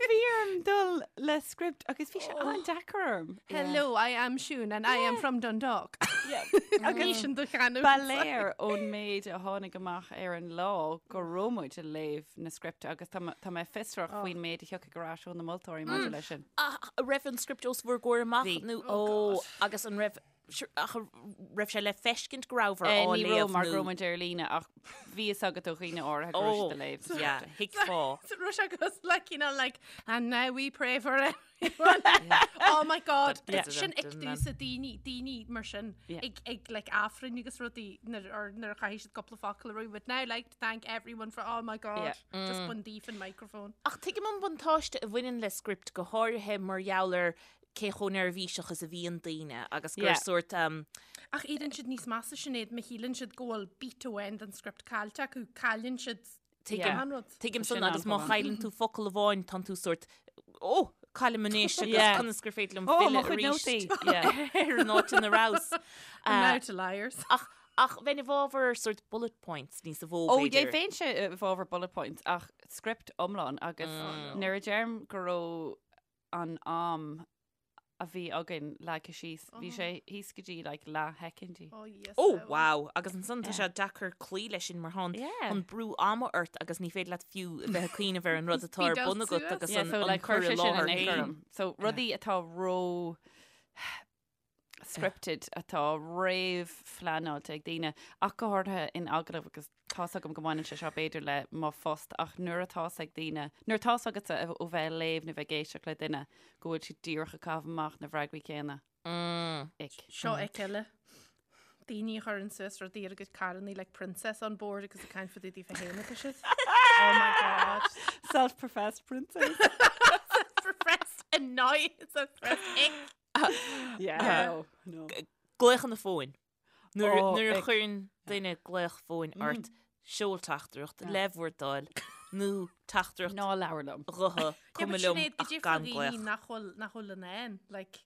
bhí orm dul le script agus bhí sé an-deacair orm. Hello, I am Siún and I am from Dundalk. Yeah. Agus sin do chanúint. Ba léir ón méid a tháinig amach ar an lá go raibh muid ag léamh na scripte agus tá tá mé fiosrach faoin méid a thiocfaidh ar ais ó na moltóirí maidir leis sin. Ach an raibh an script os bhur gcomhair amach Bhí. nó ó agus an raibh ach an raibh sé le feiscint go rabhabhair Eh, á Ní raibh léamh mar go nó raibh muid ar líne ach bhí fhios agat ó dhaoine áirithe go raibh Ó, siad ag léamh na yeah, scripte. thuigfeá. So raibh sé agus like, you know, like, and now we pray for everyone. Oh my God. Yeah. Sin ick domhsa daoine, daoine mar sin, Yeah. ag, ag like Aifreann agus rudaí nuair or nuair a chaithfidh siad cúpla focal a rá. Would now like to thank everyone for, oh my God. Yeah. Just bain díot an microphone. Ach tuigim an buntáiste a bhaineann le script go háirithe mar gheall ar cé chomh neirbhíseach is a bhíonn daoine agus gur Yeah. sórt um, Ach éiríonn siad níos measa Sinéad má shíleann siad go bhfuil beat amháin den script caillte acu, cailleann siad tuigim Yeah. an rud. Tuigim Sin san agus má an-chomh. chailleann tú focal amháin tánn tú sórt ó caillim anois agus Yeah. conas gur féidir liom Ó, mo filleadh chuid arís nótaí. Yeah. ar an áit ina rabhas. And Uh, now to liars. ach ach bheinn i bhfabhar sórt bullet points níos mó Ó, yeah, b'fhéidir. bheinnse i bhfabhar bullet points ach script iomlán agus nuair a deirim go raibh an am a bhí againn leagtha síos, bhí sé thíos go dtí like leathshoicindí. Oh, yes. Ó, wow, agus ansan tá sé deacair cloí leis sin mar tá an Yeah. an brú ama ort agus ní féidir leat fiú a bheith ag cuimhneamh ar an rud atá ar Speed bun out agat suas. agus Yeah, an, so an like cur chuir i sé sin láthair an ick féin. orm. So rudaí atá ró scripted atá réamhphleanáilte ag daoine ach go háirithe in agallamh agus tá's agam go mbaineann sé seo b'fhéidir le mo phost ach nuair atá's ag daoine, nuair atá's agatsa ó bheith ag léamh nó bheith ag éisteacht le duine go bhfuil siad díreach ag caitheamh amach na bhfreagraí céanna. Ick. Seo ick eile. Daoine a chuireann suas rudaí ar a gcuid carrannaí like princess on board agus ag caint fá dtaobh daofa féin atá siad. Oh my god. Self-professed princess. Self-professed annoyance, self-professed ick. Yeah, no, no. Glaochanna fóin. Nuair Oh, nuair a ick. chuireann duine glaoch fóin ort, seol teachtaireacht le bhur dtoil. nó teachtaireacht Ná labhair liom. ghutha, cuma liom ach gan glaoch. Nach bhfuil nach bhfuil in ann, like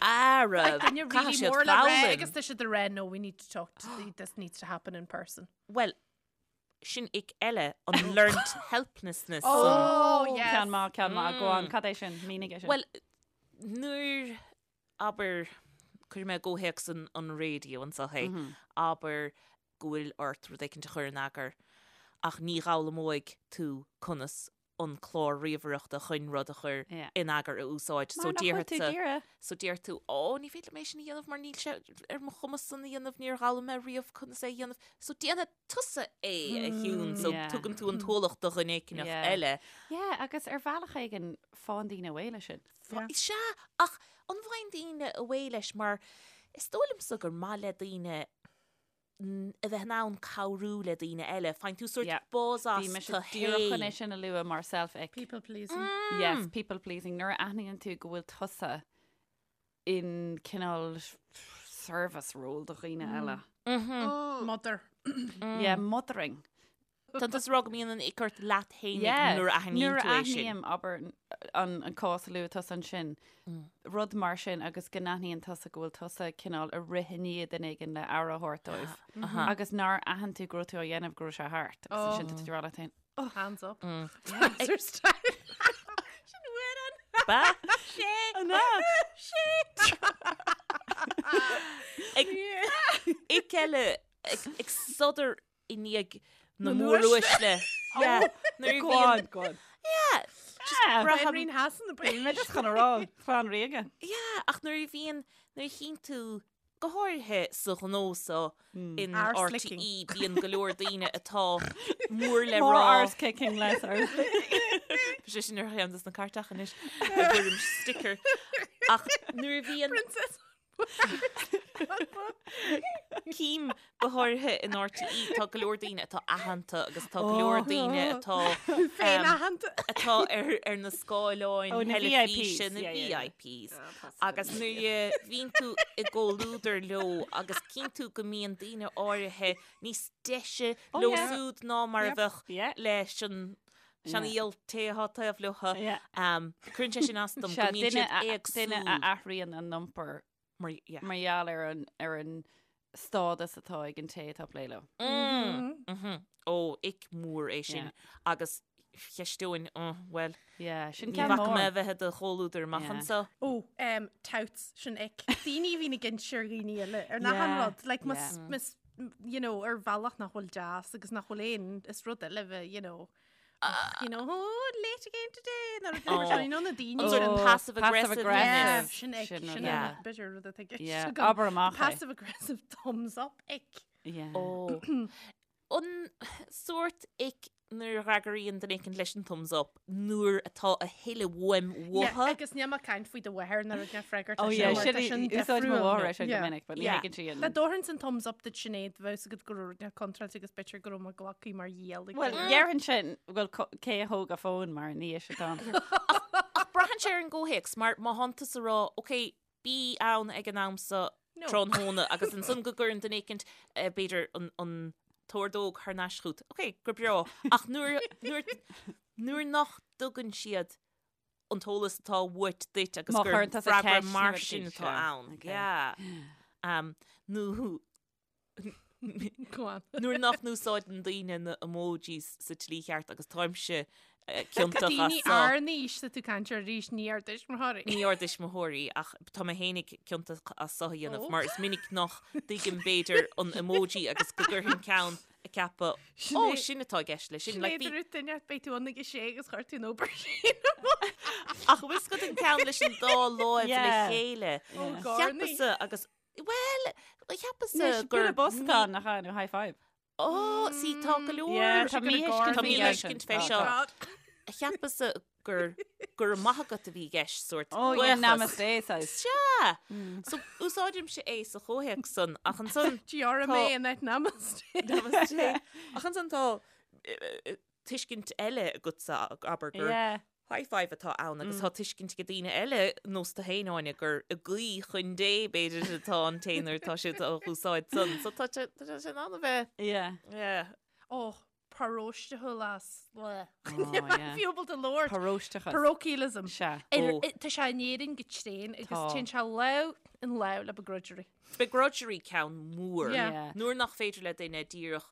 Ara, duine caithfidh really siad mór le rá foghlaim. agus tá siad ag rá no we need to talk to this needs to happen in person. Bhuel, sin ick eile, an learnt helplessness san. Oh, yes. Ceann maith, ceann maith. Go on, cad é sin? Mínigh é sin. Bhuel, nuair, abair, cuirfidh mé i gcomhthéacs an, an raidió anseo é, abair go bhfuil ort rud éicint a chur in eagar ach ní dh'fhoghlaimeoidh tú conas an clár ríomhaireachta chun rud a chur Yeah. in eagar a úsáid. So Mar nach bhfuil tú déarfadsa- ag iarraidh. So deir tú, Ó, ní féidir liom é sin a dhéanamh mar níl sé ar mo chumas san a dhéanamh, níor dh'fhoghlaim mé riamh conas é a dhéanamh. So déanfaidh tusa é, a Shiún, so Yeah. tugann tú an t-ualach do dhuine éigineach Yeah. eile. Yeah, agus ar bhealach éigin faigheann daoine away leis sin. Yeah. Sea, ach an bhfaigheann daoine away leis mar is dóigh liomsa gur maith le daoine a bheith in ann cabhrú le daoine eile. Faigheann tú sórt Yeah. buzz as Bhí mise tú díreach chun é fhéin. sin a lua mar self ick. People pleasing. Yes, people pleasing. Nuair a aithníonn tú go bhfuil tusa in cineál service role do dhaoine eile. Mother. Yeah, mothering. Tá tusa ag rá go mbíonn an ick ort leat fhéinig Yeah, nuair a aithníonn Nuair tú a é sin. aithním, abair, an an cás a luaigh tusa ansin, rud mar sin agus go n-aithníonn tusa go bhfuil tusa cineál ag rith i ndiaidh duine éigin le aire a thabhairt dóibh. Agus nár aithin tú go raibh tú á dhéanamh go raibh sé thart. Agus ansin tá tú ag rá leat féin, Hands up. Answer style. Sin uair an. Ba? Sé. An ea? Sé. Ag ick eile ag ag sodar i ndiaidh na Na móruaisle. Yeah. Nuair a Go bhíonn- on, go on. Yeah. Yeah. braithim- Braithim Hassan na Bhí mé just chun a rá, clann ríoga. Yeah, ach nuair a bhíonn, nuair a chíonn tú, go háirithe sa ghnó so in Arse RTÉ, licking. bíonn go leor daoine atá mór le More rá. arse kicking, less arse licking. Tá sé sin ar cheann des na cairteacha anois, i bhfoirm sticker. Ach nuair a bhíonn Princess. Cím go háirithe in RTÉ, tá go leor daoine atá aitheanta agus tá go leor daoine atá Féin-aitheanta. atá ar ar na scáileáin Oh, na theilifíse, VIPs, na yeah, yeah, yeah. VIPs. Agus nuair a bhíonn tú i gcomhluadar leo agus cíonn tú go mbíonn daoine áirithe níos deise Oh, leo yeah. siúd ná mar a Yep. bheadh Yeah. leis an seanfhial té atá taobh leo. Yeah. Cuireann sé sin as dom go Sea, mbíonn duine siad a- duine a éagsúil. athraíonn a n-iompar Mar, yeah. mar gheall ar an, ar an stádas atá ag an té atá ag plé leo. Mm. Mhm. Ó, ick mór é sin. Yeah. Agus cheisteoinn, oh, well, Yeah, sin ní ceann bhfaca mé mór. a bheith i do chomhluadar amach Yeah. anseo. Ó, um, touts, sin ick. Daoine a bhíonn ag inse ar dhaoine eile, ar nach Yeah, an rud, like, mas, yeah. mas, you know, ar bhealach nach bhfuil deas agus nach bhfuil aon, is rud eile bheith, you know, you know, oh, late again today, nó rud Oh. mar sin, you know, na daoine An sort sin. of Oh, passive passive aggressive. aggressive. Yeah, sin ick, Sin sin rud Yeah. an b'fhéidir rud atá i gceist Yeah, agam. abair amach é. Passive aggressive thumbs up ick. Yeah. Ó. An sórt ick nuair a fhreagraíonn duine éicint leis an thumbs up nuair atá a thuilleadh uaim Yeah, uathu. agus níl mé ag caint faoi do mháthair nuair a freagairt Oh leis yeah, sin, mar sin tá sin úsáid mo difriúil. mháthair é sin go Yeah. minic, but ní Yeah. thuigeann sí an. Dá dtabharfainnse an thumbs up duit Sinéad bheadh agat go raibh rud contráilte agus b'fhéidir go raibh mé glactha mar dhíol ag Well, duine. dhéarfainn sin bhfuil cé a thóg a fón mar ní is atá. Ach braitheann sé ar an gcomhthéacs mar má thánn tusa ag rá, ok, bí ann ag an am so No. tráthnóna agus ansan go gcuireann duine éicint eh, b'fhéidir an, an t-ordóg thar n-ais chugat. Ok, go breá. Ach nuair, nuair, nuair nach dtugann siad an t-eolas atá uait duit agus Má gur chuireann tusa freagra ceist mar nó sin rud atá éigin, ann. okay. Yeah. Um, nó Go on. nuair nach n-úsáideann daoine na emojis sa tslí cheart agus táimse eh, ciontach as Daoine so. ár n-aois tá tú ag caint air arís ní ár dtuismitheoirí. Ní ár dtuismitheoirí ach tá mé fhéinig ciontach as so a dhéanamh Ó. mar is minic nach dtuigim b'fhéidir an emoji agus go gcuirfinn ceann ag ceapadh ó Sinéad- sin atá i gceist leis sin. Like, Sinéad bhí- rud duine beidh tú ann ag a sé agus chuir tú an obair sin Ach bhfuil 's agat an ceann leis an dá láimh le Yeah. chéile. Ó, Garnaí. Cheapas-sa agus well cheapas-sa Anois, gur bualadh bos atá ann, nach ea, nó high five. Ó, sí, tá go leor. Yeah, tá Tá míthuiscint Tá faoi míthuiscint fé sin. seo. God. Cheapas-sa gur gur maith agat a bhí i gceist sórt Oh, yeah, buíochas. namaste saghas. Sea! So úsáidimse é sa chomhthéacs san ach ansan GRMA Tá- in áit namaste. Namaste. Ach ansan tá eh, eh, tuiscint eile agatsa abair gur Yeah. high five atá ann agus tá tuiscint ag daoine eile nós tú féin Áine gur ag guí chun Dé b'fhéidir atá an té nuair atá siad á úsáid san. So tá sé tá sé in ann a bheith Yeah. yeah. Oh, paróisteachas. Oh, yeah. Fiú ábalta labhairt. Paróisteachas. Parochialism. Sea. Ar- Oh. Tá sé in Éirinn go tréan agus Tá. téann sé lámh in lámh le begrudgery. Begrudgery ceann mór. Yeah. Yeah. Nuair nach féidir le duine díreach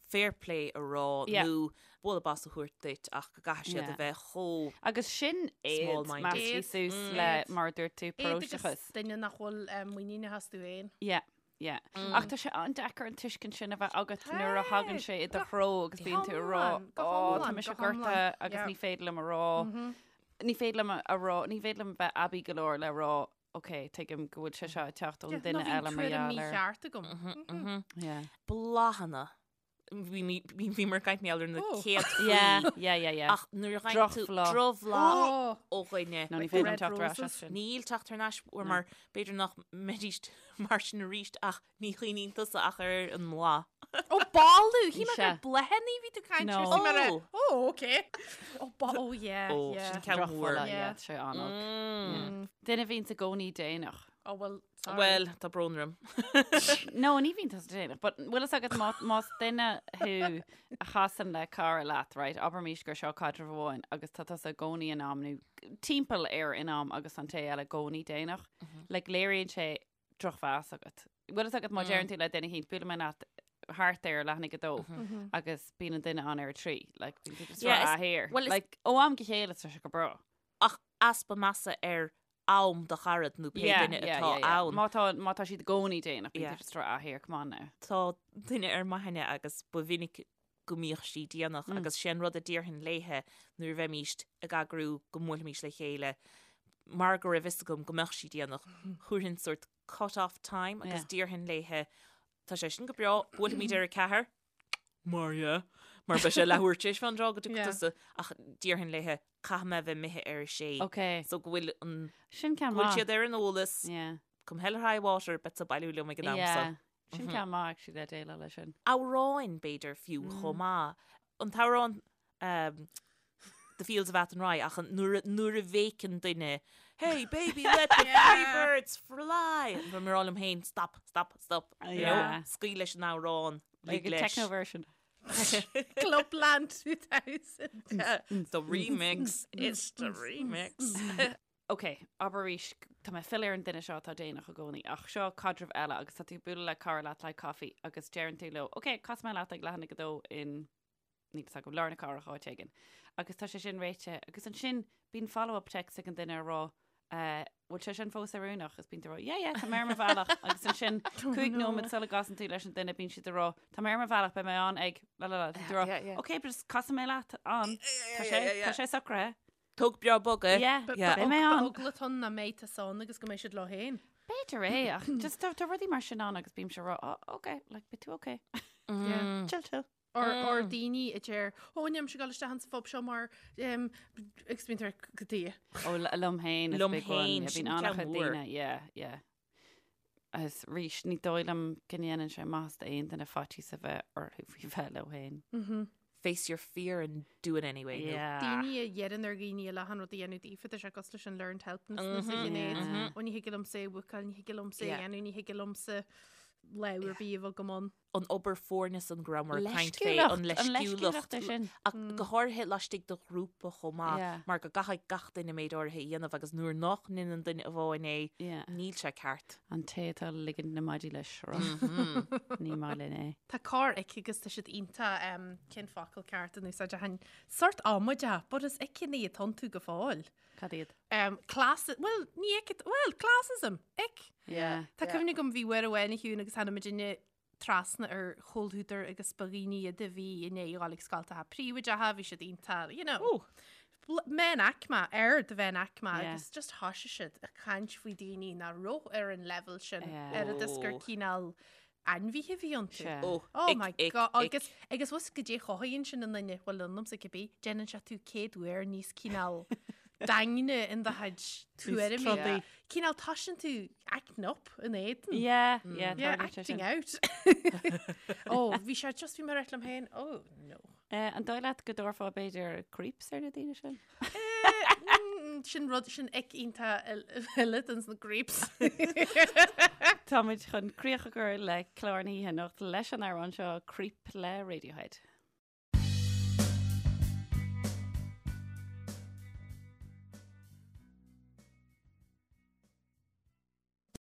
fair play a rá Yeah. nó bualadh bos a thabhairt duit ach go gcaithfidh siad Yeah. a bheith chomh Agus sin éad Small-minded. measctha Éad. suas Mm. le Éad. mar a dúirt tú Éad agus paróisteachas. duine nach bhfuil eh, muiníneach astu féin. Yeah. Yeah. Ach tá sé an-deacair an tuiscint sin a bheith agat nuair a thagann sé i do threo agus bíonn tú ag rá hiomlán, go "Ó, tá hiomlán, mise go hiomlán." gortaithe agus Yeah. ní féidir liom a rá. Ní féidir liom a rá, ní féidir liom bheith aibí go leor le rá ok, tuigim go bhfuil sé seo ag teacht ón duine eile mar gheall air. Mícheart agam. Yeah. Bláthanna. Bhí mar caint ar na Oh. céad Yeah, yeah, yeah, yeah. Ach nuair a ghain tú Drochbhláth. drochbhláth Oh. ó dhuine. No, ní féidir liom Red teacht ar ais roses. as sin. Níl teacht thar n-ais uair mar b'fhéidir nach mbeidís mar sin arís ach ní chuimhníonn tusa ach ar an mbláth. Ó boladh, shíl mé Sea. gur bláthanna bhí tú caint No. ar sí mar a- Oh. Oh, okay. Oh, ba oh yeah, Ó, yeah. sin ceann mór. Drochbholadh, Yeah. yeah, tá sé an-olc. Mm. Duine a bhíonns i gcónaí déanach. Oh, well, sorry. Well, tá brón orm. No, ní bhíonn tusa déanach, but bhfuil fhios agat má, más duine thú a chasann le cara leat, right, abraimís gur seo caidreamh amháin agus tá tusa i gcónaí in am nó timpeall ar in am agus an té eile i gcónaí déanach, like léiríonn sé drochmheas agat. Bhfuil fhios agat má deireann tú le duine éicint buailfidh mé leat thart ar leath i ndiaidh a 2 agus bíonn an duine ann ar a 3, like bíonn tú just Yeah, rá is- here. well, is- Like ó am go chéile tá sé go breá. Ach easpa measa ar am do charad nó pé duine atá ann. Má tá má tá siad i gcónaí déanach, bíonn Yeah. tú just rá ah here, come on now. Tá duine ar m'aithne agus ba mhinic go mbíodh sí déanach agus sé an rud a déarfainn léithe nuair a bheimíst ag eagrú go mbuailfimís le chéile mar go raibh fhios agam go mbeadh sí déanach, thabharfainn sórt cut off time agus Yeah. déarfainn léithe tá sé sin go breá, buailfimid ar a 4, mar yeah, mar beidh sé leathuair tar éis fán dtráth go dtiocfaidh Yeah. tusa ach déarfainn léithe caithfidh mé a bheith imithe ar a sé. Ok. So go bhfuil an Sin ceann go bhfuil maith. siad ar an eolas, Yeah. come hell or high water, beidh tú ag bailiú liom ag an am Yeah. so. Sin ceann maith actually le déileáil leis sin. Amhráin b'fhéidir fiú chomh maith. An t-amhrán um, The Fields of Athenry ach an- nuair a- nuair a bhéiceann duine Hey baby let the free birds fly Bím ag rá liom féin stop stop stop you know, Yeah. scaoil leis an amhrán Like lig a leis. techno version. Clubland 2000. The remix it's the remix Ok, abair arís, tá mé ag filleadh ar an duine seo atá déanach i gcónaí, ach seo caidreamh eile agus tá tú ag bualadh le cara leat le caife agus deireann tú leo, ok, casfaidh mé leat ag leath i ndiaidh a 2 in, níl fhios agam, lár na cathrach áit éigin. Agus tá sé sin réitithe agus ansin bíonn follow-up text ag an duine ag rá, eh, bhfuil sé sin fós oiriúnach? Agus bíonn tú ag rá, yeah, yeah, tá mé ar mo bhealach. Agus ansin 5 nóiméad sula gcasann tú leis an duine bíonn siad ag rá, tá mé ar mo bhealach, beidh mé ann ag, la la la, tá tú ag rá, Yeah, yeah. ok, but just casfaidh mé leat ann. Tá sé, tá sé socraithe. Tóg breá bog é. Yeah, Yeah. beidh mé ann. Eagla atá ann nach mbeidh tusa ann agus go mbeidh siad leo féin. B'fhéidir é, ach just tá tá rudaí mar sin ann agus bímse ag rá, oh, ok, like, beidh tú ok. Yeah. Chill, chill. Or, or daoine a deir, ó, nílimse ag dul isteach insa phub seo mar um, agus bíonn tú ag go dtí. Ó, liom féin is Liom big one. féin, Yeah, sin bíonn ceann an-chuid mór. daoine, yeah, yeah. Agus arís, ní dóigh liom go ndéanann sé maitheas d'aon duine faitíos a bheith orthu faoi bheith leo féin. Face your fear and do it anyway. nó- Yeah. Daoine a dheireann ar dhaoine eile an rud a dhéanamh daofa, tá sé cosúil leis an learned helplessness a Shinéad. Ó ní thig liomsa é a bhúcáil, ní thig liomsa é a Yeah. dhéanamh, ní thig liomsa lámh ar bith a bheith agam ann. An obair foirne san go rabhamar ag caint fé, Leisciúlacht, an an leisciúlacht. leisciúlacht é sin. Ach go háirithe laistigh de ghrúpa chomh maith, Yeah. mar go gcaithfidh gach duine méid áirithe a dhéanamh agus nuair nach ndéanann duine amháin é, Yeah. níl sé ceart. An té atá ag ligint na maidí le sruth. Ní maith linn é. Tá corr ick agus tá siad iontach um, cén focal ceart in úsáid a hain sort amaideach, but is ickeanna atá iontu go fóill. Cad iad? Um, class, well, ní ick, well, classism, ick. Yeah. Tá cuimhne agam bhí uair amháin a Shiún agus tháinig muidinne trasna ar chomhluadar agus ba dhaoine iad a bhí i ndiaidh a ghabháil ag scoltacha príobháideacha, bhí siad iontach, you know, meánaicme, ar de mheánaicme Yeah. agus just thoisigh siad ag caint faoi daoine nach raibh ar an level sin, Yeah. ar a gur Oh. cineál ainmhithe a bhí iontu. Sea. Oh, Oh ick, my ick, god, ick. agus agus bhfuil go dté chothaíonn sin i nduine, bhuel ionamsa cibé, déanann sé tú céad uair níos cineál daingne in do chuid tuairimí. trodaí. Cineál toisíonn tú acting up in éadan. Yeah, yeah, Yeah, tarlaíonn sé acting sin. out. oh, bhí sé just bhí mé ag rá liom féin, oh no. Eh, an dóigh leat go dtabharfá b'fhéidir creeps ar na daoine sin? Eh, mm, sin rud sin ick iontach eile den sna creeps. Táimid chun críoch a chur le clár na hoíche anocht leis an amhrán seo Creep le Radiohead.